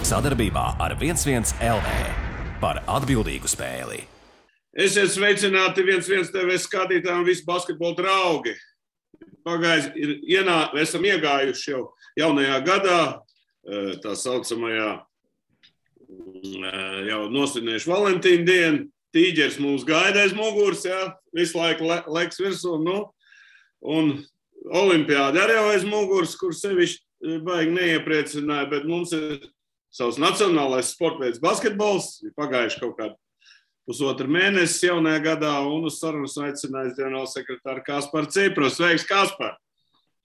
Sadarbībā ar 11 LV par atbildīgu spēli. Esiet sveicināti 11 TV skatītāji un visi basketbola draugi. Esam iegājuši jau jaunajā gadā, tā saucamajā jau nosvinējuši Valentīna dienu. Tīģers mūs gaida aiz muguras, visu laiku leks virsū, un olimpiādi arī aiz muguras, kur sevišķi baigi neiepriecināja, bet mums ir savs nacionālais sportveids basketbols, ir pagājuši kaut kādu pusotru mēnesi jaunajā gadā, un uz sarunas aicinājis ģenerālsekretāru Kasparu Cipru. Sveiks, Kaspar!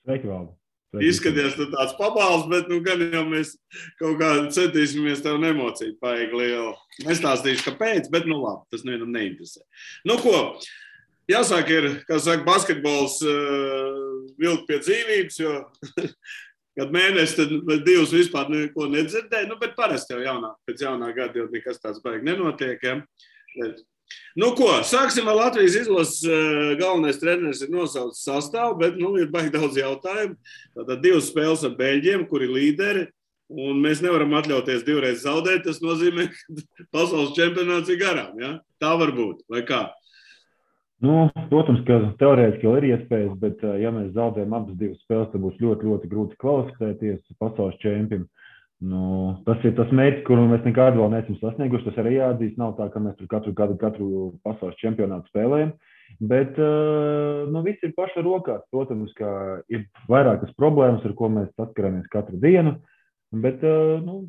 Sveiki, Valdi! Izskaties, tu tāds pabals, bet gan jau mēs kaut kā centīsimies tev nemocīt paigi lielu. Nestāstīšu, kāpēc, bet labi, tas nevienam neinteresē. Ko, jāsāk ir, kā saka, basketbols vilkt pie dzīvības, jo kad mēnesi, tad divus vispār neko nedzirdēja, bet parasti jau pēc jaunā gada jau nekas tāds baigi nenotiek, sāksim ar Latvijas izlases galvenais treneris ir nosaucis sastāvu, bet ir baigi daudz jautājumu. Tātad 2 spēles ar Beļģiem, kuri līderi, un mēs nevaram atļauties 2 reizes zaudēt. Tas nozīmē, ka pasaules čempionāts ir garām, Tā var būt, vai kā? Protams, ka teorētiski jau ir iespējas, bet ja mēs zaudējam abas 2 spēles, tad būs ļoti, ļoti grūti kvalificēties pasaules čempionam. Tas ir tas mērķis, kuru mēs nekad vēl neesam sasnieguši. Tas arī jāatzīst, nav tā, ka mēs tur katru pasaules čempionātu spēlējam, bet viss ir paša rokās. Protams, ka ir vairākas problēmas, ar ko mēs saskaramies katru dienu, bet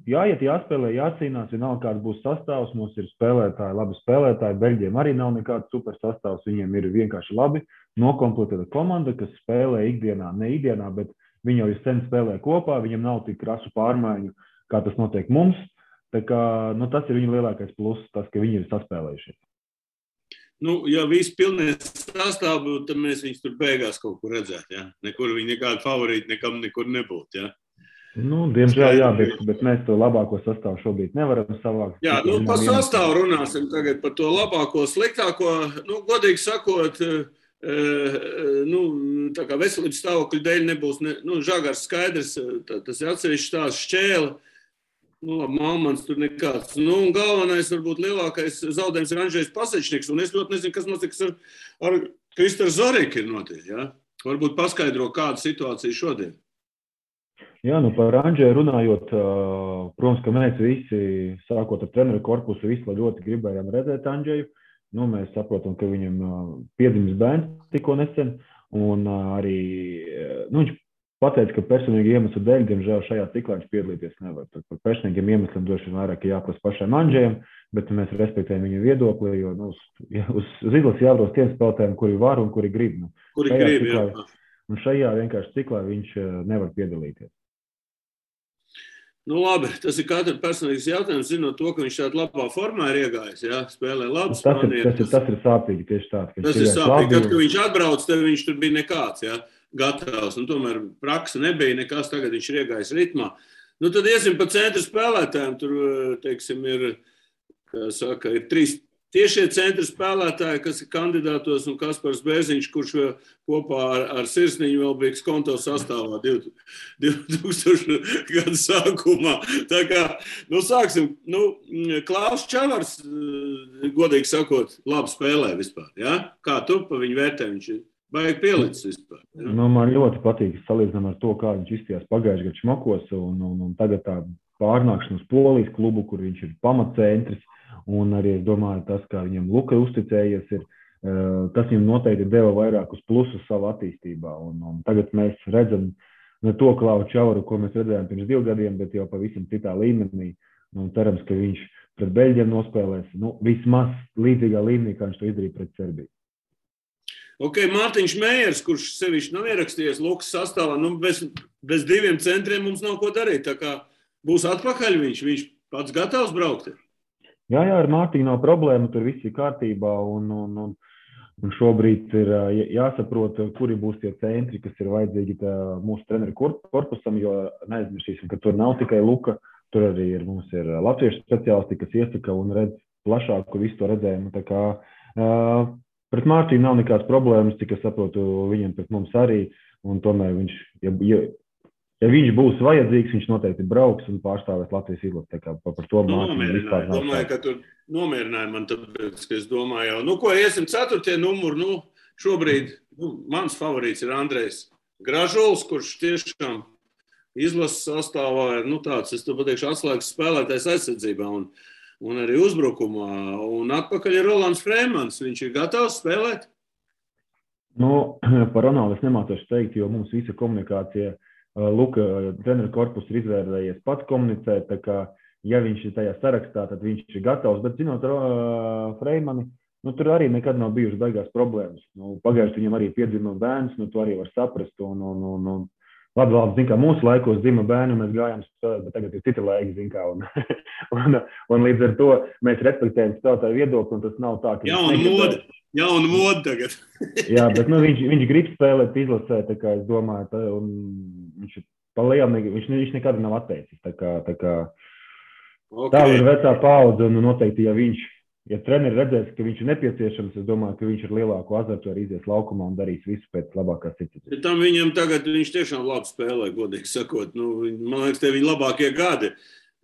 jāiet, jāspēlē, jācīnās, vienalga kāds būs sastāvs. Mums ir spēlētāji, labi spēlētāji, Beļģiem arī nav nekāds super sastāvs, viņiem ir vienkārši labi nokomplektēta komanda, kas spēlē ikdienā, ne ikdienā, bet viņi jau sen spēlē kopā, viņam nav tik krasu pārmaiņu, kā tas notiek mums. Tā kā, tas ir viņa lielākais pluss, tas, ka viņi ir saspēlējušies. Ja visi pilnīgi sastāvu, tad mēs viņus tur beigās kaut kur redzētu, Nekur viņi nekādi favorīti nekur nebūtu, Diemžēl, bet mēs to labāko sastāvu šobrīd nevaram savākt. Par sastāvu runāsim tagad, par to labāko, sliktāko. Godīgi sakot, tā kā veselības stāvokļa dēļ nebūs, Žagars skaidrs, tas ir atsevišķi tās Šķēle, Malmans tur nekāds. Galvenais, varbūt lielākais zaudējums ir Andžejs Pasečniks, un es ļoti nezinu, kas notiks ar Kristaru Zariku ir notiek, Varbūt paskaidro, kāda situācija šodien. Par Andžeju runājot, protams, ka mēs visi, sākot ar treneru korpusu, visi ļoti gribējām redzēt Andžeju. Mēs saprotam, ka viņam piedzimis bērns tikko nesen, un arī viņš pateica, ka personīgi iemeslu dēļ, diemžēl šajā ciklā viņš piedalīties nevar. Par personīgiem iemesliem droši vien vairāk jāprasa pašam Andžejam, bet mēs respektējam viņa viedokli, jo uz izlases jābrauc tiem spēlētājiem, kuri var un kuri grib. Un šajā vienkārši ciklā viņš nevar piedalīties. Labi, tas ir katra personīgas jautājums, zinot to, ka viņš tādā labā formā ir iegājis, spēlē labi. Tas ir sāpīgi tieši tāds. Tas ir sāpīgi, kad viņš atbrauc, tad viņš tur bija nekāds, gatavs, un tomēr praksa nebija nekas, tagad viņš ir iegājis ritmā. Tad iesim pa centra spēlētājiem, tur, teiksim, ir 3 tiešie centra spēlētāji, kas ir kandidātos, un Kaspars Bērziņš, kurš kopā ar Sirsniņu vēl bija konto sastāvā 2000 gadu sākumā. Tā kā, sāksim, Klaus Čavars, godīgi sakot, labi spēlē vispār, Kā tu pa viņu vērtē, viņš ir baigi pielicis vispār, Man ļoti patīk salīdzinām ar to, kā viņš izstījās pagājušajā gadā Šmakos, un tagad tā pārnākšana uz Polijas klubu, kur viņš ir pamatcentris. Un arī, es domāju, tas, kā viņam Luka uzticējies, tas viņam noteikti deva vairākus plusus savu attīstībā. Un tagad mēs redzam ne to Klausu Čavaru, ko mēs redzējām pirms 2 gadiem, bet jau pavisam citā līmenī. Un cerams, ka viņš pret Beļģiem nospēlēs vismaz līdzīgā līmenī, kā viņš to izdarīja pret Serbiju. Mārtiņš Mējers, kurš sevišķi nav ierakstījies Lukas sastāvā, bez 2 centriem mums nav ko darīt. Tā kā būs atpakaļ viņš pats gatavs braukt. Jā, ar Mārtiņu nav problēma, tur viss ir kārtībā, un šobrīd ir jāsaprot, kuri būs tie centri, kas ir vajadzīgi mūsu treneru korpusam, jo neaizmirsīsim, ka tur nav tikai Luka, tur arī mums ir latviešu speciālisti, kas iesaka un redz plašāku visu to redzējumu. Tā kā pret Mārtiņu nav nekādas problēmas, cik es saprotu, viņam pret mums arī, un tomēr viņš, ja viņš būs vajadzīgs, viņš noteikti brauks un pārstāvēs Latvijas izlasi. Tā kā par to mācību vispār nav. Domāju, ka tur nomierināja man, tāpēc, ka es domāju jau, ko iesim 4. numuru, šobrīd mans favorīts ir Andrejs Gražuls, kurš tiešām izlases sastāvā ir, tāds, es to pateikšu, atslēgas spēlētājs aizsardzībā un arī uzbrukumā. Un atpakaļ ir Rolands Freimans. Viņš ir gatavs spēlēt? Par Ronaldu es nemācošu teikt, jo mums visa komunikācija, Luka treneru korpus ir izvērtējies pats komunicēt, tā kā, ja viņš ir tajā sarakstā, tad viņš ir gatavs. Bet, zinot Freimani, tur arī nekad nav bijušas beigās problēmas. Pagājuši viņam arī piedzima bērns, to arī var saprast. Labi, zin kā, mūsu laikos dzima bērni, mēs gājām spēlēt, bet tagad ir cita laika, zin kā. Un līdz ar to mēs respektējam spēlētāju viedokli, un tas nav tā, ka... Jauna moda tagad. Jā, bet viņš grib spēlēt izlasē, tā kā es domāju, un viņš palielam, viņš nekad nav atteicis. Tā kā tā ir vecā paudze, un noteikti, ja treneri redzēs, ka viņš ir nepieciešams, es domāju, ka viņš ar lielāku azartu arī izies laukumā un darīs visu pēc labākās situācijas. Tam viņam tagad, viņš tiešām labi spēlē, godīgi sakot. Man liekas, te viņa labākie gadi.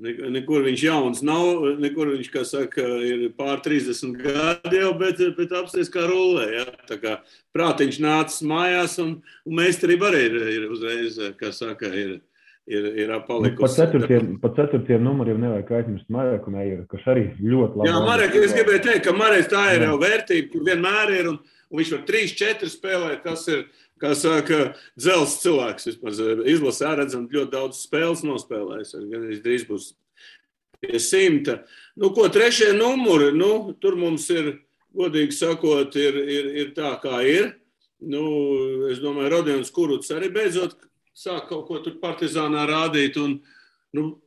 Nekur viņš jauns nav, nekur viņš, kā saka, ir pār 30 gadi jau, bet apsties kā rullē. Ja? Tā kā prātiņš nācis mājās un meistarība arī ir uzreiz, kā saka, ir palikusi. Par 4. numuriem nevajag aizmirst Mareku Meijeru, kas arī ļoti labi. Jā, Marek, es gribēju teikt, ka Mareks tā ir jau vērtība, kur vienmēr ir, un viņš var 3-4 spēlēt, kas ir, kā saka, dzels cilvēks. Vispār izlasē redzam ļoti daudz spēles nospēlējis, gan drīz būs pie 100. 3. numuri, tur mums ir, godīgi sakot, ir tā, kā ir. Es domāju, Rodions Kuruts arī beidzot sāk kaut ko tur Partizānā rādīt, un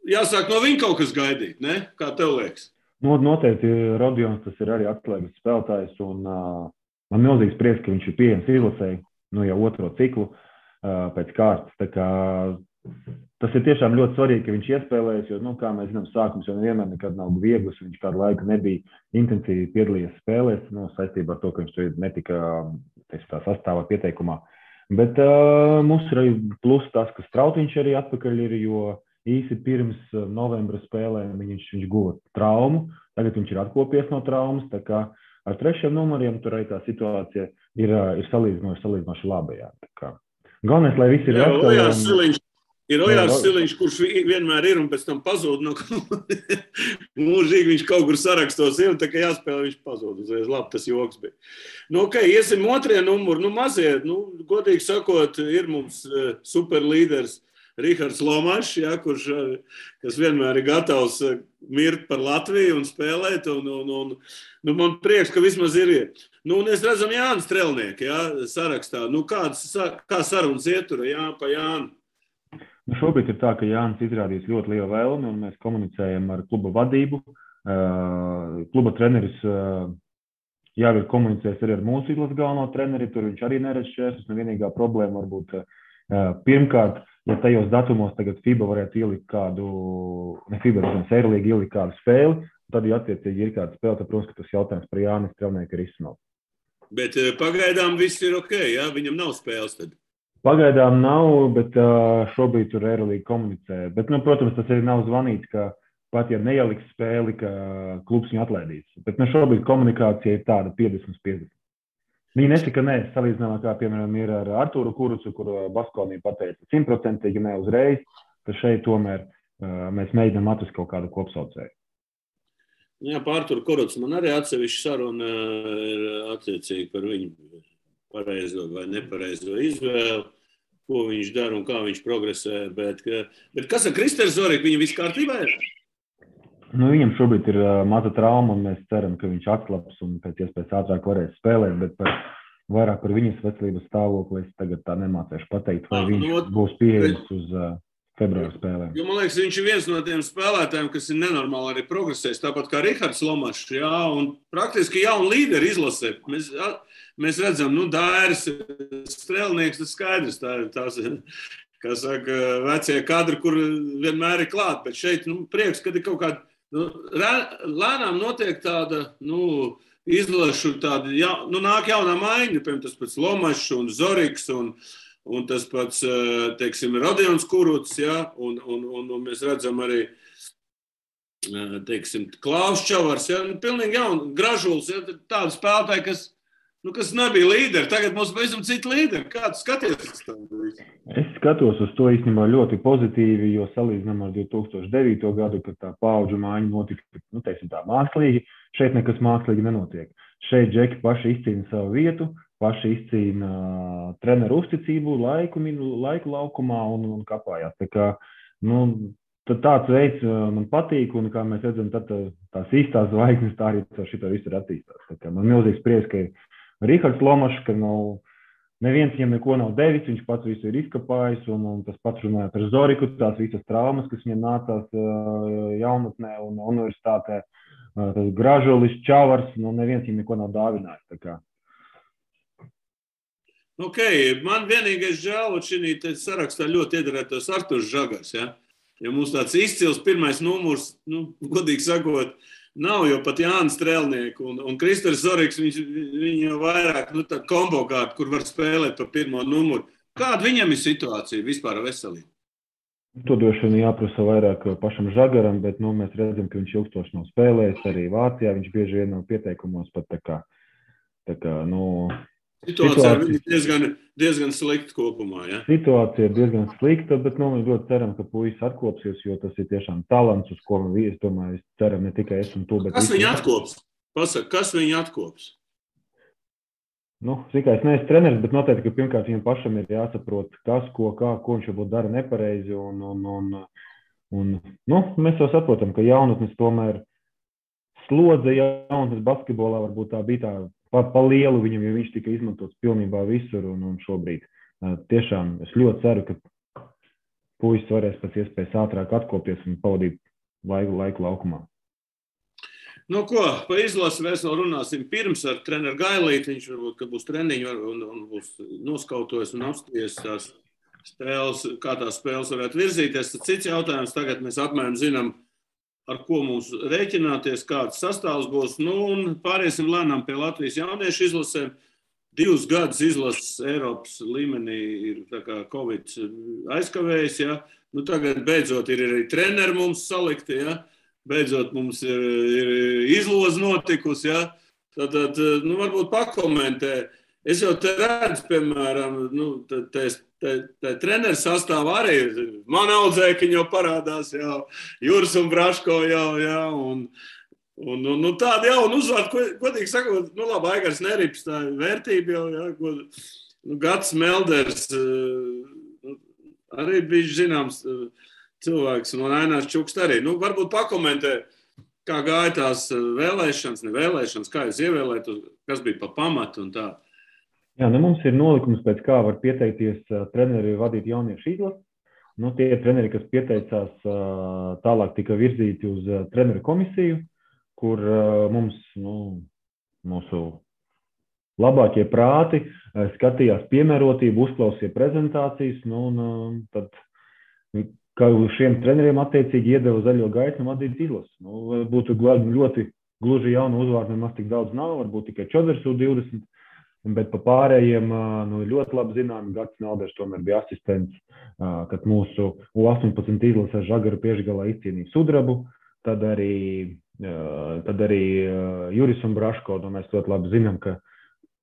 jāsāk no viņa kaut kas gaidīt, ne? Kā tev liekas? Noteikti Rodions tas ir arī atslēgas spēlētājs, un man milzīgs prieks, ka viņš ir pieejams izlasēji, jau 2. ciklu pēc kārtas. Tā kā tas ir tiešām ļoti svarīgi, ka viņš iespēlējas, jo, kā mēs zinām, sākums jau nevienmēr nekad nav viegls, viņš kādu laiku nebija intensīvi piedalījies spēlēs, saistībā ar to, ka viņš tur netika tā sastāvā pieteikumā. Bet mums ir arī plus tas, ka Strautiņš arī atpakaļ ir, jo īsi pirms novembra spēlēm viņš guva traumu, tagad viņš ir atkopies no traumas, tā kā ar 3. numuriem tur arī tā situācija ir salīdzinoši laba. Jā. Galvenais, lai visi ir veseli. Ir Ojārs Siliņš, kurš vienmēr ir un pēc tam pazūd. Mūžīgi viņš kaut kur sarakstos ir, un tā kā jāspēlē, viņš pazūd. Uzreiz labi, tas joks bija. Iesim 2. numuru. Mazie, godīgi sakot, ir mums superlīderis Rihards Lomašs, kas vienmēr ir gatavs mirt par Latviju un spēlēt. Man prieks, ka vismaz ir. Es redzam Jānis Strelnieki, sarakstā. Kā sarunas ietura pa Jānu? Šobrīd ir tā, ka Jānis izrādīs ļoti lielu vēlmi, un mēs komunicējam ar kluba vadību. Kluba treneris jau ir komunicējis arī ar mūsu izlases galveno treneri, tur viņš arī neredz šķēršļus, vienīgā problēma varbūt pirmkārt, ja tajos datumos tagad FIBA varētu ielikt kādu, ne FIBA, bet Eirolīga ielikt kādu spēli, tad, ja attiecīgi ir kāda spēle, tad, protams, ka tas jautājums par Jānis Strelnieku ir izsmelt. Bet pagaidām viss ir ok, ja? Viņam nav spēles tad? Pagaidām nav, bet šobrīd tur Eirolīga komunicē. Bet, protams, tas arī nav zvanīts, ka pat ja neieliks spēli, ka klubs viņu atlaidīs. Bet šobrīd komunikācija ir tāda 50-50. Viņi nesaka nē, salīdzinājumā, kā, piemēram, ir ar Artūru Kurucu, kur Baskonija pateica 100% ne uzreiz, ka šeit tomēr mēs mēģinām atrast kaut kādu kopsaucēju. Jā, par Artūru Kurucu man arī atsevišķa saruna ir attiecīgi par viņu pareizo vai nepareizo izvēli, ko viņš dara un kā viņš progresē. Bet kas ar Kristēru Zoriku? Viņam viss kārtībā ir? Viņam šobrīd ir maza trauma, un mēs ceram, ka viņš atslaps un pēc iespējas ātrāk varēs spēlēt, bet vairāk par viņas veselības stāvokli es tagad tā nemācēšu pateikt, vai viņš būs pieejams uz februāra spēlēm. Jo, man liekas, viņš ir viens no tiem spēlētājiem, kas ir nenormāli arī progresējis, tāpat kā Rihards Lomašs, un praktiski jauni līderi izlasē. Mēs redzam, Dairis, Strelnieks, tas skaidrs, tās, kā saka, vecie kadri, kur vienmēr ir klāt, bet šeit, prieks, kad ir kaut kāda, lēnām notiek tāda, izlašu tāda, nāk jaunā maiņa, piemēram, tas pēc Lomašs un Zoriks un un tas pats, teiksim, Rodions Kuruts, ja, un mēs redzam arī, teiksim, Klaus Čavars, ja, pilnīgi jauni, Gražuls, ja, tādi spēlētāji, kas nebija līderi. Tagad mums pavisam citi līderi. Kā tu skaties uz to? Es skatos uz to īstenībā ļoti pozitīvi, jo salīdzinām ar 2009. Gadu, kad tā paudžu mājiņa notika, teiksim tā, mākslīgi. Šeit nekas mākslīgi nenotiek. Šeit džeki paši izcīna savu vietu, paši izcīna treneru uzticību, laiku laukumā un kapājās. Tā kā, tad tāds veids man patīk, un kā mēs redzam, tad tās īstās zvaigznes tā arī šito visu ir attīstās. Tā kā man milzīgs prieks, ka ir Rihards Lomašs, ka neviens viņam neko nav devis, viņš pats visu ir izkapājis, un tas pats runāja par Zoriku, tās visas traumas, kas viņam nācās jaunatnē un universitātē, tas Gražulis, Čavars, neviens viņam neko nav dāvinājis. Tā kā. Man vienīgais žēl, šī sarakstā ļoti iedarētos Arturs Žagars, ja? Ja mums tāds izcils pirmais numurs, godīgi sakot, nav, jo pat Jānis Strēlnieku un Kristers Zoriks, viņi jau vairāk, tāda kombo kārta, kur var spēlēt pa pirmo numuru. Kāda viņam ir situācija vispār veselība? To droši vien jāprasa vairāk pašam Žagaram, bet mēs redzam, ka viņš ilgstoši nav spēlējis, arī Vācijā viņš bieži vien nav pieteikumos pat tā kā Situācija ir diezgan slikta kopumā, ja? Situācija ir diezgan slikta, bet mēs ļoti ceram, ka puisis atkopsies, jo tas ir tiešām talants, uz ko es domāju, ceram ne tikai es un tu, bet... Kas viņu atkops? Pasaka, kas viņu atkops? Es neesmu treneris, bet noteikti, ka pirmkārt viņam pašam ir jāsaprot, kas, ko viņš varbūt dara nepareizi, un mēs jau saprotam, ka jaunatnes tomēr slodze jaunatnes basketbolā varbūt tā bija tā pa lielu viņam, jo viņš tika izmantots pilnībā visur, un šobrīd tiešām es ļoti ceru, ka puisis varēs pēc iespējas ātrāk atkopties un pavadīt laiku laukumā. Pa izlasi mēs vēl runāsim pirms ar treneru Gailīti, viņš varbūt, ka būs treniņi un būs noskautojis un apsties tās spēles, kā tās spēles varētu virzīties. Tad cits jautājums, tagad mēs apmēram zinām, ar ko mums rēķināties, kāds sastāvs būs. Un pāriesim lēnām pie Latvijas jauniešu izlasēm. 2 gadus izlases Eiropas līmenī ir tā kā Covid aizkavējis. Ja? Tagad beidzot ir arī treneri mums salikti. Ja? Beidzot mums ir izloze notikusi. Ja? Tad varbūt pakomentē. Es jau te redzu, piemēram, treneru sastāvā arī man audzēkiņi jau parādās, jau Juris un Braško jau, ja, un tādi jauni uzvārdi, godīgi sakot, labi, Aigars Nerips, tā vērtība jau, ja, Gats Melders, arī bija zināms cilvēks, un Ainārs Čukst arī. Varbūt pakomentē, kā gāja tās vēlēšanas, nevēlēšanas, kā jūs ievēlētu, kas bija pa pamatu un tā. Jā, mums ir nolikums, pēc kā var pieteikties treneri vadīt jauniešu izlasi. Tie treneri, kas pieteicās, tālāk tika virzīti uz treneru komisiju, kur mums, mūsu labākie prāti skatījās piemērotību, uzklausīja prezentācijas, tad kā šiem treneriem attiecīgi iedeva zaļo gaismu vadīt izlasi. Būtu ļoti gluži jaunu uzvārdu, nemaz tik daudz nav, varbūt tikai Čoders U20. Bet pa pārējiem ļoti labi zinām, Gats Melders tomēr bija asistents, kad mūsu U18 izlasē Žagaru Piešgalā izcīnīja sudrabu, tad arī Juris un Braško, mēs ļoti labi zinām, ka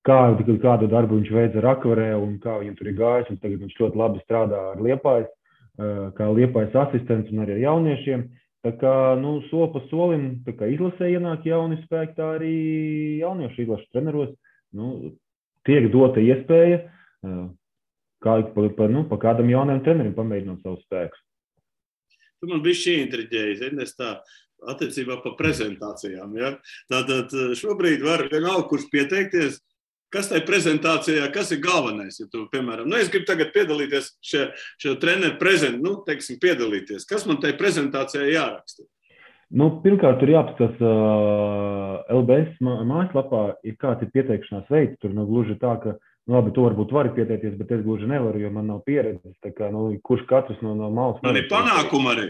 kādu darbu viņš veica Rakvarē un kā viņam tur ir gājis, un tagad viņš ļoti labi strādā ar Liepājas, kā Liepājas asistents un arī ar jauniešiem. Tā kā, soli pa solim, tā kā izlasē ienāk jauni spēki, tā arī jauniešu izlašu treneros, tiek dota iespēja pa kādam jaunam trenerim pamēģināt savus spēkus. Tu man bišķi intriģēji, es tā attiecībā pa prezentācijām. Ja? Tātad šobrīd var vienalga, kurš pieteikties, kas tai prezentācijā, kas ir galvenais. Ja tu, piemēram, es gribu tagad piedalīties šo treneru piedalīties. Kas man tai prezentācijā jāraksta? Pirmkārt, tur jāapskatās LBS mājaslapā, kāds ir pieteikšanās veids. Tur gluži tā, ka, labi, to varbūt vari pieteikties, bet es gluži nevaru, jo man nav pieredzes. Tā kā, kurš katrs no malas... Man ir panākumi arī.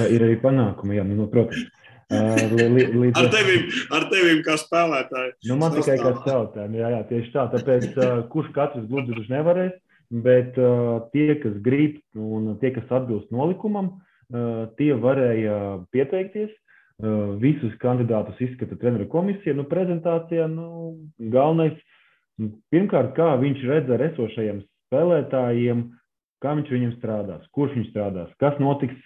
Ir arī panākumi, jā, protams. Ar tevim kā spēlētāji. Man tikai kā spēlētājiem, jā, tieši tā. Tāpēc, kurš katrs gluži nevarēs, bet tie, kas grib un tie, kas atbilst nolikumam, tie varēja pieteikties. Visus kandidātus izskata treneru komisija. Prezentācijā galvenais, pirmkārt, kā viņš redz ar esošajiem spēlētājiem, kā viņš viņiem strādās, kurš viņš strādās, kas notiks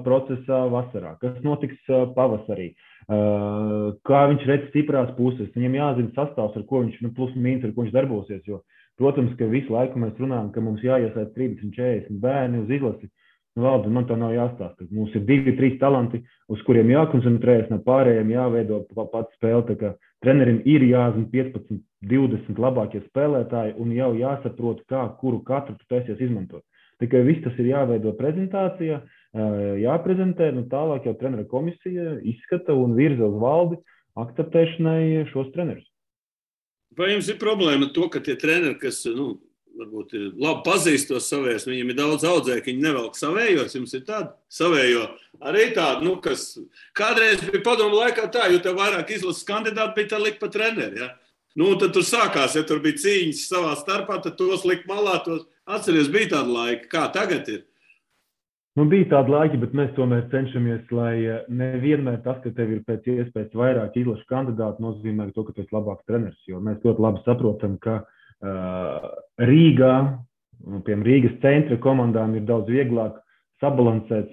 procesā vasarā, kas notiks pavasarī, kā viņš redz stiprās puses. Viņam jāzina sastāvs, ar ko viņš, plus mīnus, ar ko viņš darbosies, jo, protams, ka visu laiku mēs runājam, ka mums jāiesaist 30-40 bērni uz izlasi. Valdi, man tā nav jāstāsta. Mums ir 2-3 talanti, uz kuriem jākoncentrējas, no pārējiem jāveido pats spēle. Tā kā trenerim ir jāzina 15-20 labākie spēlētāji un jau jāsaprot, kuru katru tu taisies izmantot. Tikai viss tas ir jāveido prezentācijā, jāprezentē, tālāk jau trenera komisija izskata un virza uz valdi akceptēšanai šos trenerus. Vai jums ir problēma to, ka tie treneri, kas, varbūt labi pazīst tos savējos, viņiem ir daudz audzēju, ka viņi nevelk savējos, jums ir tāda savējo arī tāda, kas kādreiz bija padomu laikā tā, jo tev vairāk izlases kandidāti bija tā likt pa treneri, ja? Tad tur sākās, ja tur bija cīņas savā starpā, tad tos likt malā, tos atceries, bija tāda laika. Kā tagad ir? Bija tāda laika, bet mēs tomēr cenšamies, lai nevienmēr tas, ka tev ir pēc iespējas vairāk izlašu kandidātu, nozīmē to, ka tu esi labāks treneris, jo mēs ļoti labi saprotam, ka Rīgā, piemēram, Rīgas centra komandām ir daudz vieglāk sabalansēt,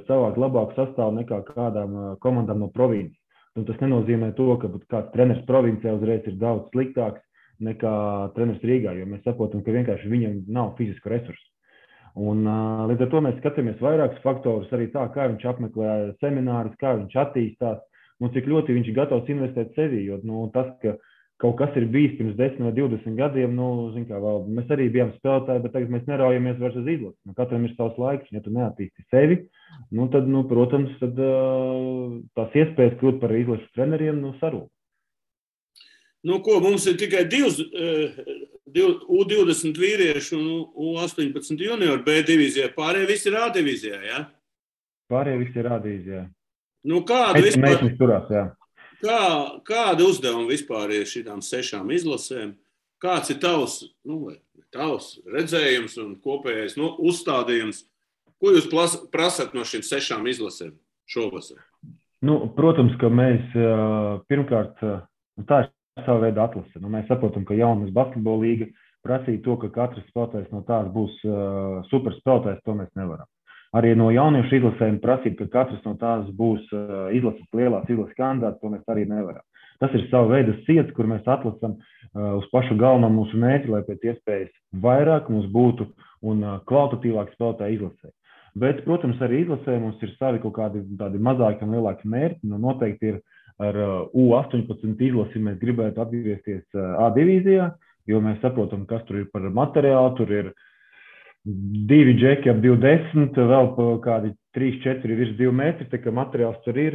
savākt labāku sastāvu nekā kādām komandām no provinces. Tas nenozīmē to, ka kāds treneris provincē uzreiz ir daudz sliktāks nekā treneris Rīgā, jo mēs saprotam, ka vienkārši viņam nav fizisku resursu. Un līdz ar to mēs skatāmies vairākus faktorus, arī tā, kā viņš apmeklē seminārus, kā viņš attīstās, un cik ļoti viņš ir gatavs investēt sevī, jo tas, ka kaut kas ir bijis pirms 10 vai 20 gadiem, mēs arī bijām spēlētāji, bet tagad mēs neraujamies vairs uz izlasi. Katram ir savs laiks, ja tu neattīsti sevi, tad, protams, tās iespējas kļūt par izlases treneriem, sarūk. Mums ir tikai U20 vīrieši un U18 juniori B divīzijā, pārējie visi ir A divīzijā, ja? Pārējie visi ir A divīzijā. Kādu vispār? Mēs turās, jā. Kāda uzdevuma vispār ir šitām 6 izlasēm? Kāds ir tavs redzējums un kopējais uzstādījums? Ko jūs prasat no šīm 6 izlasēm šovasar? Protams, ka mēs pirmkārt, tā ir sava veida atlase. Mēs saprotam, ka jaunas basketbola līga prasīja to, ka katrs spēlētājs no tās būs superspēlētājs, to mēs nevaram. Arī no jauniešu izlasēm prasīt, ka katrs no tās būs lielās izlases kandidāts, to mēs arī nevaram. Tas ir sava veida ciets, kur mēs atlasam uz pašu galveno mūsu mērķi, lai pēc iespējas vairāk mums būtu un kvalitatīvāk spēlētāji izlasē. Bet, protams, arī izlasē mums ir savi kaut kādi tādi mazāki un lielāki mērķi. Noteikti ir ar U18 izlasi mēs gribētu atgriezties A divīzijā, jo mēs saprotam, kas tur ir par materiālu, tur ir 2 džeki ap 2,10, vēl kādi 3-4 virs 2 metri, tā kā materiāls tur ir,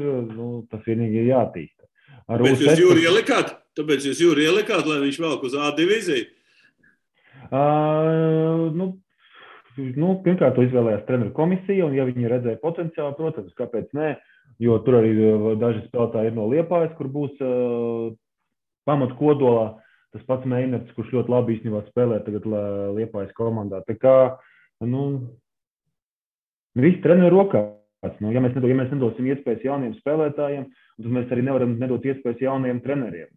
tas vienīgi ir jātīsta. Tāpēc jūs Jūri ielikāt, lai viņš velk uz A divīziju? Pirmkārt, to izvēlējās treneru komisija, un ja viņi redzēja potenciālu, protams, kāpēc nē, jo tur arī daži spēlētāji ir no Liepājas, kur būs pamat kodolā. Tas pats Meinerts, kurš ļoti labi īstenībā spēlē tagad Liepājas komandā. Tā kā, viss treneru rokās. Ja mēs nedosim iespējas jauniem spēlētājiem, tad mēs arī nevaram nedot iespējas jauniem treneriem.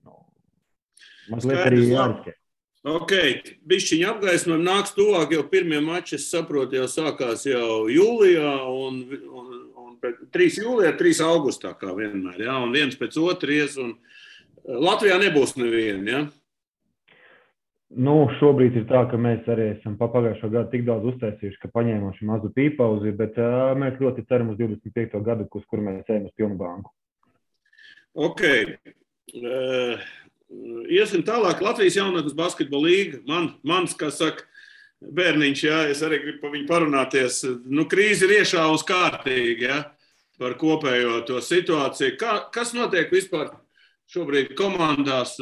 Mazliet arī jāriskē. Ok, bišķiņi apgaismojumi nāks tuvāk, jau pirmie mači, es saprotu, jau sākās jau jūlijā, un 3 jūlijā, 3 augustā, kā vienmēr, ja? Un viens pēc otries, un Latvijā nebūs neviena, ja? Šobrīd ir tā, ka mēs arī esam pagājušo gadu tik daudz uztaisījuši, ka paņēmām šo mazu pīpauzi, bet mēs ļoti ceram uz 25. gadu, uz kuru mēs ejam uz pilnu banku. Ok. Iesim tālāk. Latvijas jaunatnes basketbola līga. Mans, kā saka, bērniņš, jā, es arī gribu par viņu parunāties. Krīze ir iešāvusi kārtīgi, jā, par kopējo to situāciju. Kas notiek vispār šobrīd komandās?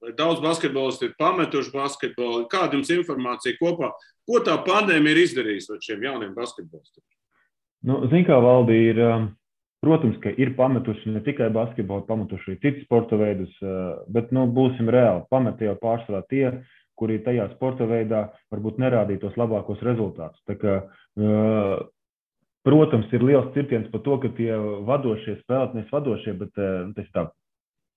Daudz basketbolisti ir pametuši basketbolu. Kāda jums informācija kopā? Ko tā pandēmija ir izdarījusi ar šiem jauniem basketbolistiem? Zin kā, Valdi, ir, protams, ka ir pametuši ne tikai basketbolu, pametuši arī citus sporta veidus, bet, būsim reāli, pameti jau pārsvarā tie, kuri tajā sporta veidā varbūt nerādīja tos labākos rezultātus. Tā kā, protams, ir liels cirtiens par to, ka tie vadošie spēlētājs vadošie, bet tas tā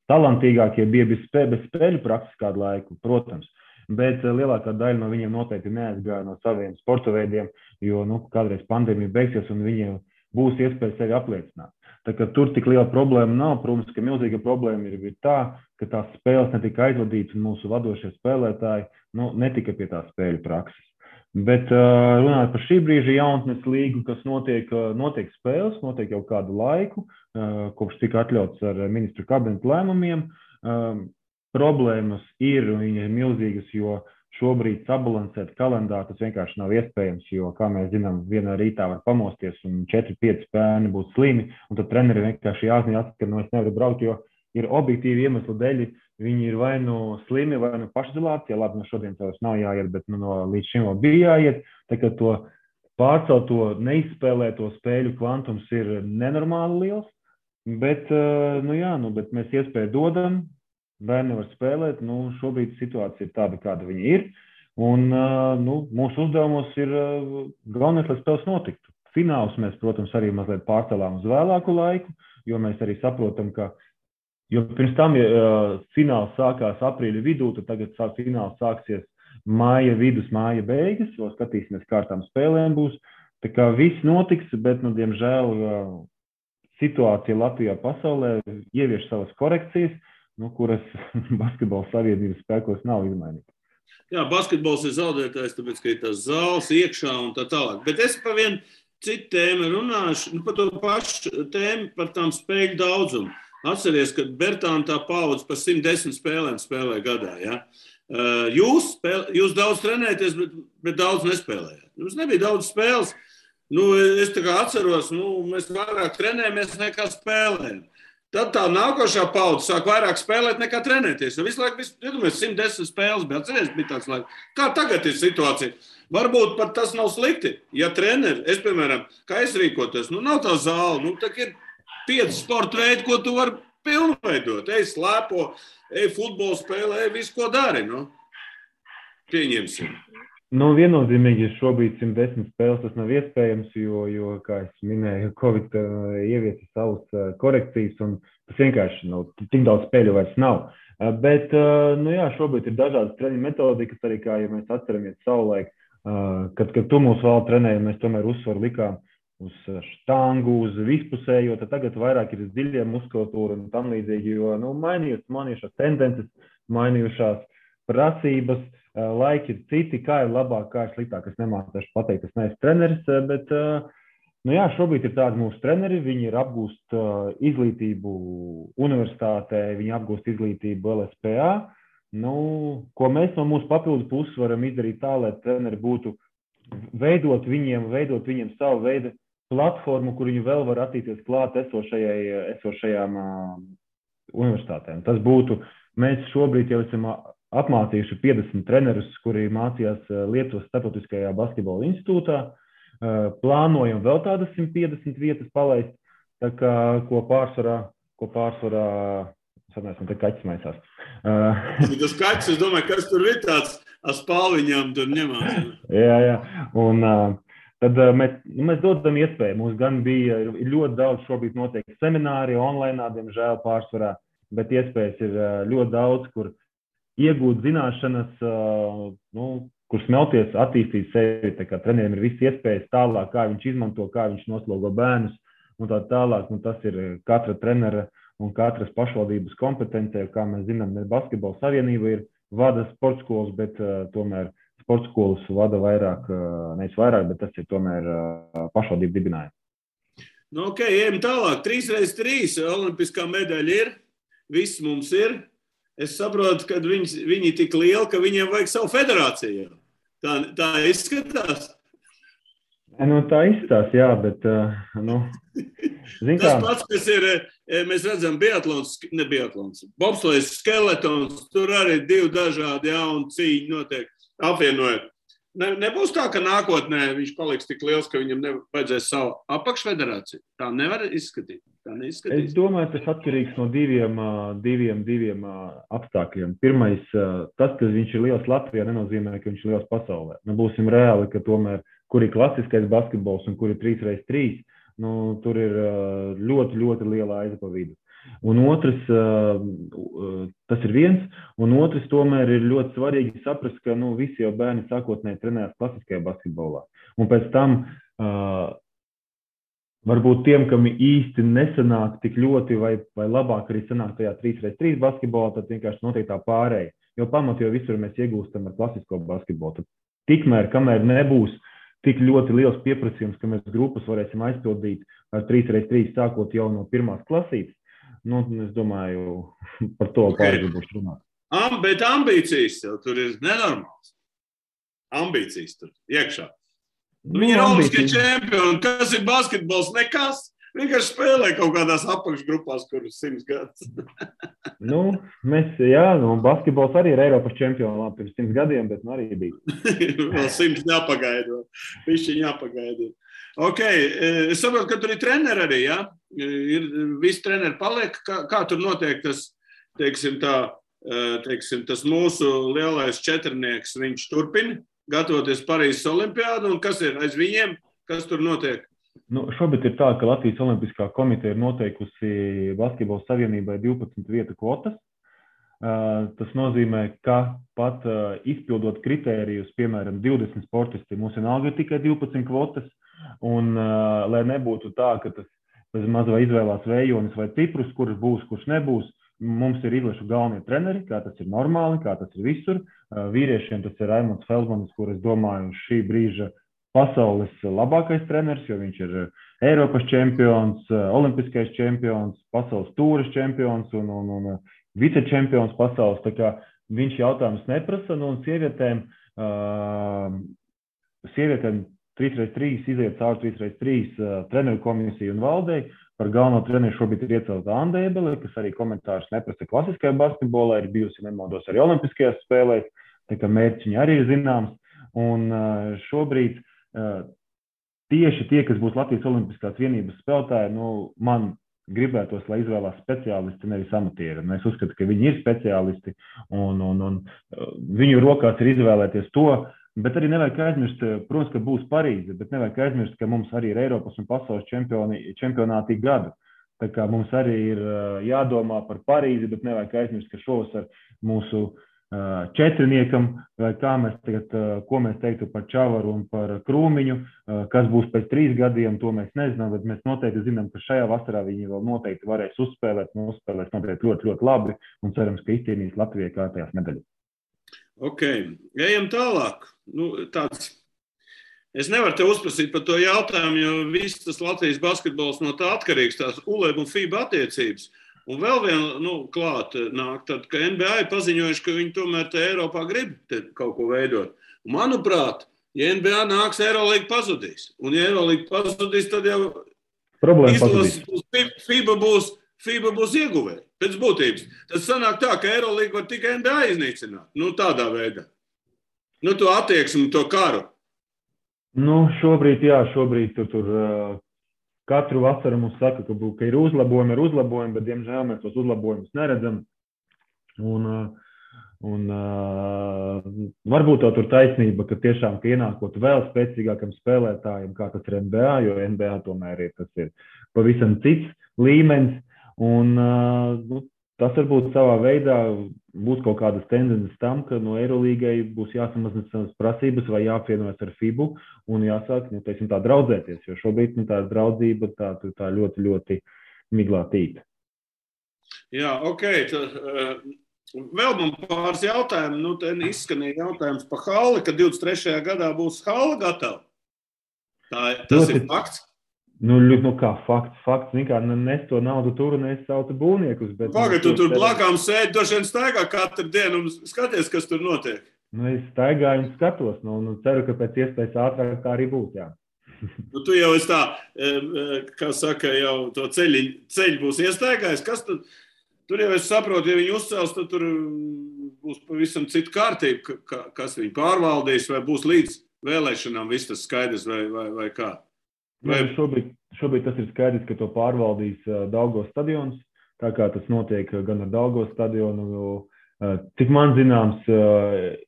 talantīgākie bija bez spēļu prakses kādu laiku, protams. Bet lielākā daļa no viņiem noteikti neaizgāja no saviem sporta veidiem, jo kādreiz pandēmija beigsies un viņiem būs iespēja sevi apliecināt. Tā kā tur tik liela problēma nav, protams, ka milzīga problēma ir tā, ka tās spēles netika aizvadītas un mūsu vadošie spēlētāji netika pie tās spēļu prakses. Bet runājot par šī brīža jaunatnes līgu, kas notiek spēles, notiek jau kādu laiku, kopš tika atļauts ar ministru kabinetu lēmumiem. Problēmas ir milzīgas, jo šobrīd sabalansēt kalendāru tas vienkārši nav iespējams, jo, kā mēs zinām, vienā rītā var pamosties un 4-5 bērni būs slimi, un tad treneri vienkārši jāzina, ka es nevaru braukt, jo ir objektīvi iemesli dēļ, viņi ir vai slimi, vai pašizolācijā, labi, šodien tās nav jāiet, bet līdz šim vēl bija jāiet, tā kā to pārcelto neizspēlēto spēļu kvantums ir nenormāli liels, bet mēs iespēju dodam, bērni var spēlēt, šobrīd situācija ir tāda, kāda viņa ir, un mūsu uzdevumos ir galvenais, lai spēles notiktu. Fināls mēs, protams, arī mazliet pārcelām uz vēlāku laiku, jo mēs arī saprotam, ka, jo pirms tam fināls sākās aprīļa vidū, tad tagad fināls sāksies māja vidus, māja beigas, jo skatīsimies, kārtām spēlēm būs. Tā kā viss notiks, bet, diemžēl, situācija Latvijā pasaulē ievieš savas korekcijas, kuras basketbola savienības spēkos nav izmainītas. Jā, basketbols ir zaudētājs, tāpēc, ka ir tās zāles iekšā un tā tālāk. Bet es par vienu citu tēmu runāšu, par to pašu tēmu, par tām spēļu daudzumu. Atceries, ka Bertāna tā paudze par 110 spēlēm spēlē gadā, ja? Jūs daudz trenēties, bet daudz nespēlējāt. Jums nebija daudz spēles. Es tā kā atceros, mēs vairāk trenējamies nekā spēlējam. Tad tā nākošā paudze sāk vairāk spēlēt nekā trenēties. Visu laiku, 110 spēles bija, atceries, bija tāds laiks. Kā tagad ir situācija? Varbūt pat tas nav slikti. Ja treneri, piemēram, kā es rīkotos, nav tā zāle, tā ir 5 sporta veidi, ko tu vari pilnveidot. Ej slēpo, ej futbolu spēlē, ej visu, ko dari, Pieņemsim. Viennozīmīgi šobrīd 110 spēles tas nav iespējams, jo kā es minēju, Covid ieviesa savas korekcijas un tas vienkārši tik daudz spēļu vairs nav. Bet, šobrīd ir dažādas treniņu metodikas, arī kā, ja mēs atceramies savulaik, kad tu mūs vēl trenēji, mēs tomēr uzsvaru likām uz štangu, uz vispusējo, tad tagad vairāk ir dziļie muskulatūra un tam līdzīgi, jo, mainījušās tendences, mainījušās prasības, laiki ir citi, kā ir labāk, kā ir sliktāk. Es nemācīšu pateikt, es neesmu treneris, bet, šobrīd ir tādi mūsu treneri, viņi ir apgūst izglītību universitātē, viņi apgūst izglītību LSPA, ko mēs no mūsu papildu puses varam izdarīt tā, lai treneri būtu veidot viņiem savu veidu platformu, kur viņi vēl var attīstīties klāt esošajām universitātēm. Tas būtu, mēs šobrīd jau esam apmācījuši 50 trenerus, kuri mācījās Lietuvas Starptautiskajā basketbola institūtā. Plānojam vēl tādas 150 vietas palaist, tā kā, ko pārsvarā, sanāsim, te kaķis maisās. Tas kaķis, es domāju, kas tur ir tāds, spāliņām tur ņemās. Jā, un tad mēs dodam iespēju. Mums gan bija ļoti daudz šobrīd notiek semināri, online, diemžēl pārsvarā, bet iespējas ir ļoti daudz, kur iegūt zināšanas, kur smelties, attīstīt sevi. Tā kā treneriem ir visi iespējas tālāk, kā viņš izmanto, kā viņš noslogo bērnus un tā tālāk. Tas ir katra trenera un katras pašvaldības kompetencija. Kā mēs zinām, ne basketbola savienība ir vada sporta skolas, bet tomēr sporta skolas vada vairāk, nevis vairāk, bet tas ir tomēr pašvaldību dibinājumi. Ejam tālāk. 3x3 olimpiskā medaļa ir. Viss mums ir. Es saprotu, ka viņi tik lieli, ka viņiem vajag savu federāciju. Tā izskatās? Tā izskatās, jā, bet, Tas pats, kas ir, mēs redzam, biatlons, bobslējas skeletons, tur arī 2 dažādi jauni cīņi notiek, apvienojot. Nebūs tā, ka nākotnē viņš paliks tik liels, ka viņam vajadzēs savu apakšfederāciju. Tā nevar izskatīt. Tā Es neizskatīs. domāju, tas atkarīgs no diviem apstākļiem. Pirmais, tas, ka viņš ir liels Latvijā, nenozīmē, ka viņš ir liels pasaulē. Nu, būsim reāli, ka tomēr, kur ir klasiskais basketbols un kur ir 3x3, nu, tur ir ļoti, ļoti liela aiza pa vidu. Un otrs, tas ir viens, un otrs tomēr ir ļoti svarīgi saprast, ka visi jau bērni sākotnēji trenējas klasiskajā basketbolā. Un pēc tam varbūt tiem, kam īsti nesanāk tik ļoti vai labāk arī sanāk tajā 3x3 basketbolā, tad vienkārši notiek tā pārēja. Jo pamatu jau visur mēs iegūstam ar klasisko basketbolu. Tad tikmēr, kamēr nebūs tik ļoti liels pieprasījums, ka mēs grupas varēsim aizpildīt ar 3x3 sākot jau no pirmās klasītes, es domāju, par to pārgribuši runāt. Bet ambīcijas jau tur ir nenormāls. Ambīcijas tur iekšā. Viņi ir olimpiskie čempioni. Kas ir basketbols? Nekas. Vienkārši spēlē kaut kādās apakšgrupās, kuras 100 gadus. Basketbols arī ir Eiropas čempions pirms 100 gadiem, bet arī bija. Vēl 100 jāpagaida. Višķiņ jāpagaida. Ok, es saprotu, ka tur ir treneri arī, ja? Visi treneri paliek. Kā tur notiek tas, tas mūsu lielais četrnieks, viņš turpina gatavoties Parīzes olimpiādu, un kas ir aiz viņiem, kas tur notiek? Šobrīd ir tā, ka Latvijas Olimpiskā komiteja ir noteikusi Basketbola savienībai 12 vietu kvotas. Tas nozīmē, ka pat izpildot kritērijus, piemēram, 20 sportisti, mums vienalga ir tikai 12 kvotas, un lai nebūtu tā, ka tas bez maz vai izvēlās vējonis vai ciprus, kurš būs, kurš nebūs, mums ir izlašu galvenie treneri, kā tas ir normāli, kā tas ir visur. Vīriešiem tas ir Raimonds Feldmanis, kur es domāju šī brīža pasaules labākais treneris, jo viņš ir Eiropas čempions, olimpiskais čempions, pasaules tūras čempions un vicečempions pasaules. Tā kā viņš jautājums neprasa, un sievietēm 3x3 iziet cauri 3x3 treneru komisiju un valdei. Par galveno treneru šobrīd ir iecelta Anda Ebele, kas arī komentārus neprasa klasiskajā basketbolā, ir bijusi nemaldos arī olimpiskajās spēlēs, tā kā mērķi viņa arī ir zināms. Un šobrīd tieši tie, kas būs Latvijas Olimpiskās vienības spēlētāji, man gribētos, lai izvēlās speciālisti, nevis amatieri. Es uzskatu, ka viņi ir speciālisti un viņu rokās ir izvēlēties to, bet arī nevajag aizmirst, protams, ka būs Parīze, bet nevajag aizmirst, ka mums arī ir Eiropas un pasaules čempionāti gadu. Tā kā mums arī ir jādomā par Parīzi, bet nevajag aizmirst, ka šovasar mūsu četriniekam, vai kā mēs tagad, ko mēs teiktu par Čavaru un par Krūmiņu, kas būs pēc 3 gadiem, to mēs nezinām, bet mēs noteikti zinām, ka šajā vasarā viņi vēl noteikti varēs uzspēlēt noteikti ļoti, ļoti labi un cerams, ka izcīnīs Latvijai kārtējās medaļas. Ok, ejam tālāk. Es nevaru te uzprasīt par to jautājumu, jo viss tas Latvijas basketbols no tā atkarīgs, tās ULEB un FIBA attiecības. Un vēl viena klāt nāk, tad, ka NBA ir paziņojuši, ka viņi tomēr te Eiropā grib kaut ko veidot. Un, manuprāt, ja NBA nāks, Eurolīga pazudīs. Un ja Eurolīga pazudīs, tad jau FIBA būs ieguvēja pēc būtības. Tad sanāk tā, ka Eurolīga var tikai NBA iznīcināt. Tādā veidā. To attieksmi, to karu. Šobrīd tur katru vasaru mums saka, ka ir uzlabojumi, bet, diemžēl, mēs tos uzlabojumus neredzam. Un varbūt tur taisnība, ka tiešām ienākot vēl spēcīgākam spēlētājiem, kā tas ir NBA, jo NBA tomēr tas ir pavisam cits līmenis. Un tas varbūt savā veidā būs kaut kādas tendences tam, ka no Eirolīgai būs jāsamazina savas prasības vai jāapvienojas ar FIBU un jāsāk, tā draudzēties, jo šobrīd tā draudzība tā ļoti, ļoti miglātīta. Jā, ok. Vēl man pāris jautājumu. Te izskanīja jautājums par halli, ka 23. gadā būs halla gatava. Tas ir fakts? Kā fakts, nes to naudu tur un es saucu būvniekus. Pagad, tu tur blakām sēdi, došiem staigā katru dienu un skaties, kas tur notiek. Es staigāju un skatos, ceru, ka pēc iespējas ātrāk tā arī būs, jā. Tu jau esi tā, kā saka, jau to ceļu būs iestaigājis. Kas tur jau es saprotu, ja viņi uzcels, tad tur būs pavisam cita kārtība, kas viņi pārvaldīs, vai būs līdz vēlēšanām viss tas skaidrs vai kā? Šobrīd tas ir skaidrs, ka to pārvaldīs Daugavas stadions, tā kā tas notiek gan ar Daugavas stadionu. Cik man zināms,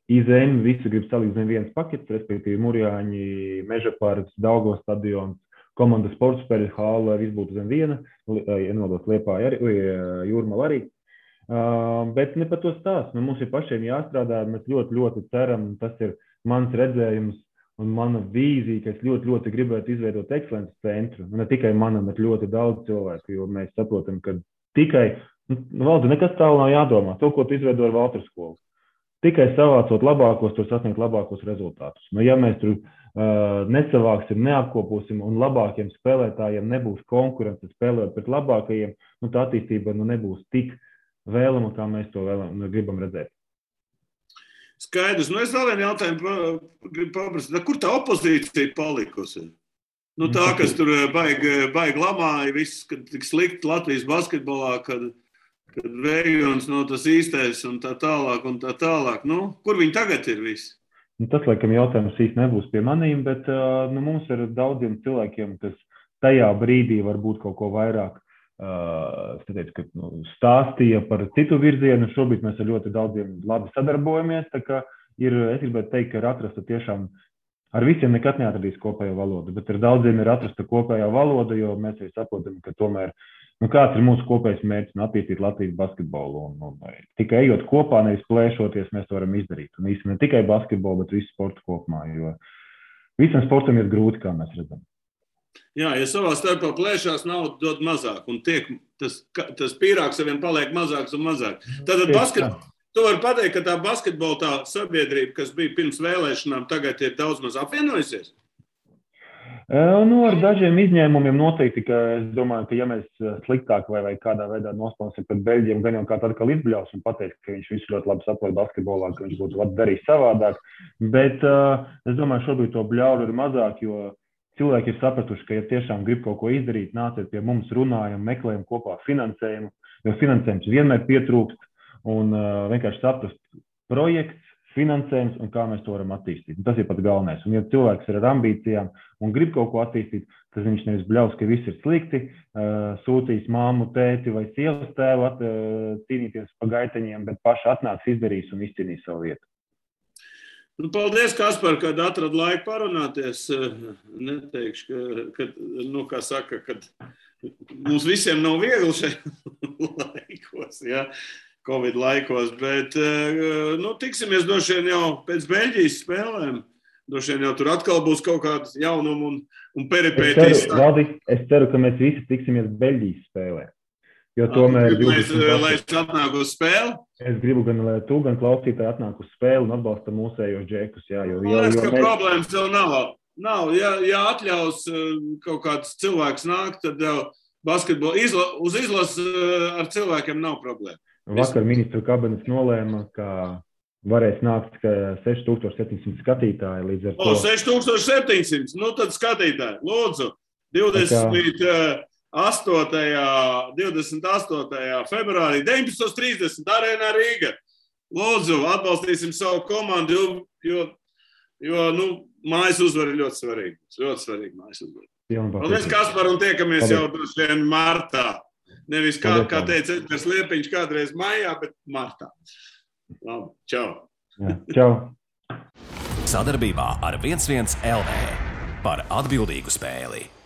IZM visu grib salikt zem viens pakets, respektīvi Murjāņi, Mežaparks, Daugavas stadions, komandas sporta spēļu hāla, lai viss būtu zem viena, ienodos Liepāja arī, Jūrmala arī. Bet ne par to stāst. Mums ir pašiem jāstrādā, mēs ļoti, ļoti ceram, tas ir mans redzējums un mana vīzija, ka es ļoti, ļoti gribētu izveidot ekscelences centru. Ne tikai manam, bet ļoti daudz cilvēku, jo mēs saprotam, ka tikai, Valdi, nekas tālu nav jādomā. To, ko tu izveido ar Valtru skolu. Tikai savācot labākos, tur sasniegt labākos rezultātus. Ja mēs tur nesavāksim, neapkoposim un labākiem spēlētājiem nebūs konkurence spēlēt pret labākajiem, tā attīstība nebūs tik vēlama, kā mēs to gribam redzēt. Skaidrs. Es vēl vienu jautājumu gribu paprasīt. Kur tā opozīcija palikusi? Tā, kas tur baigi lamāja, viss, kad tik slikti Latvijas basketbolā, kad Vējons nav tas īstais un tā tālāk. Kur viņi tagad ir visi? Tas, laikam, jautājums īsti nebūs pie manīm, bet mums ir daudziem cilvēkiem, kas tajā brīdī varbūt kaut ko vairāk stāstīja par citu virzienu. Šobrīd mēs ar ļoti daudziem labi sadarbojamies. Tā kā es gribētu teikt, ka ir atrasta tiešām, ar visiem nekad neatradīs kopējo valodu, bet ar daudziem ir atrasta kopējā valoda, jo mēs arī saprotam, ka tomēr, kāds ir mūsu kopējs mērķis attīstīt Latvijas basketbolu. Tikai ejot kopā, nevis plēšoties, mēs to varam izdarīt. Un īsti ne tikai basketbolu, bet visu sportu kopumā, jo visam sportam ir grūti, kā mēs redzam. Jā, ja savā starpā plēšās, naudu dod mazāk, un tas pīrāgs saviem paliek mazāks un mazāk. Tātad tu vari pateikt, ka tā basketbola tā sabiedrība, kas bija pirms vēlēšanām, tagad ir daudz maz apvienojusies? Ar dažiem izņēmumiem noteikti, ka es domāju, ka ja mēs sliktāk vai kādā veidā nospēlēsim pret Beļģiem, gan jau kāds atkal izbļaus un pateiks, ka viņš visu ļoti labi saprot basketbolā, ka viņš būtu darījis savādāk. Bet es domāju, šobrīd to bļauru ir mazāk, jo cilvēki ir sapratuši, ka ja tiešām grib kaut ko izdarīt, nāciet pie mums, runājam, meklējam kopā finansējumu, jo finansējums vienmēr pietrūkst un vienkārši saprast projekts, finansējums un kā mēs to varam attīstīt. Tas ir pats galvenais. Un ja cilvēks ir ar ambīcijām un grib kaut ko attīstīt, tas viņš nevis bļaus, ka viss ir slikti, sūtīs māmu, tēti vai sievas tēvu cīnīties pa gaiteņiem, bet paši atnāks, izdarīs un izcīnīs savu vietu. Paldies, Kaspar, kad atrad laiku parunāties. Neteikšu, ka mums visiem nav viegli šeit laikos, ja? Covid laikos, bet tiksimies droši vien jau pēc Beļģijas spēlēm. Droši vien jau tur atkal būs kaut kāds jaunums un peripētīs. Es ceru, ka mēs visi tiksimies Beļģijas spēlē. Jo tomēr lai es atnāku uz spēli? Es gribu gan, lai tu, gan klausītāji atnāk uz spēli un atbalsta mūsējos džekus. Jā, problēmas vēl nav. Ja atļaus kaut kāds cilvēks nākt, tad basketbolu uz izlases ar cilvēkiem nav problēma. Vakar ministru kabinets nolēma, ka varēs nākt 6700 skatītāji līdz ar to. 6700, tad skatītāji, lūdzu, 28. februārī, 19:30 Arēnā Rīga. Lūdzu, atbalstīsim savu komandu, jo mājas uzvara ir ļoti svarīga. Ļoti svarīga mājas uzvara. Paldies, Kaspar, un tiekamies jau droši vien martā. Nevis kā teica Edgars Liepiņš kādreiz maijā, bet martā. Labi, čau. Čau. Sadarbībā ar 11 LV par atbildīgu spēli.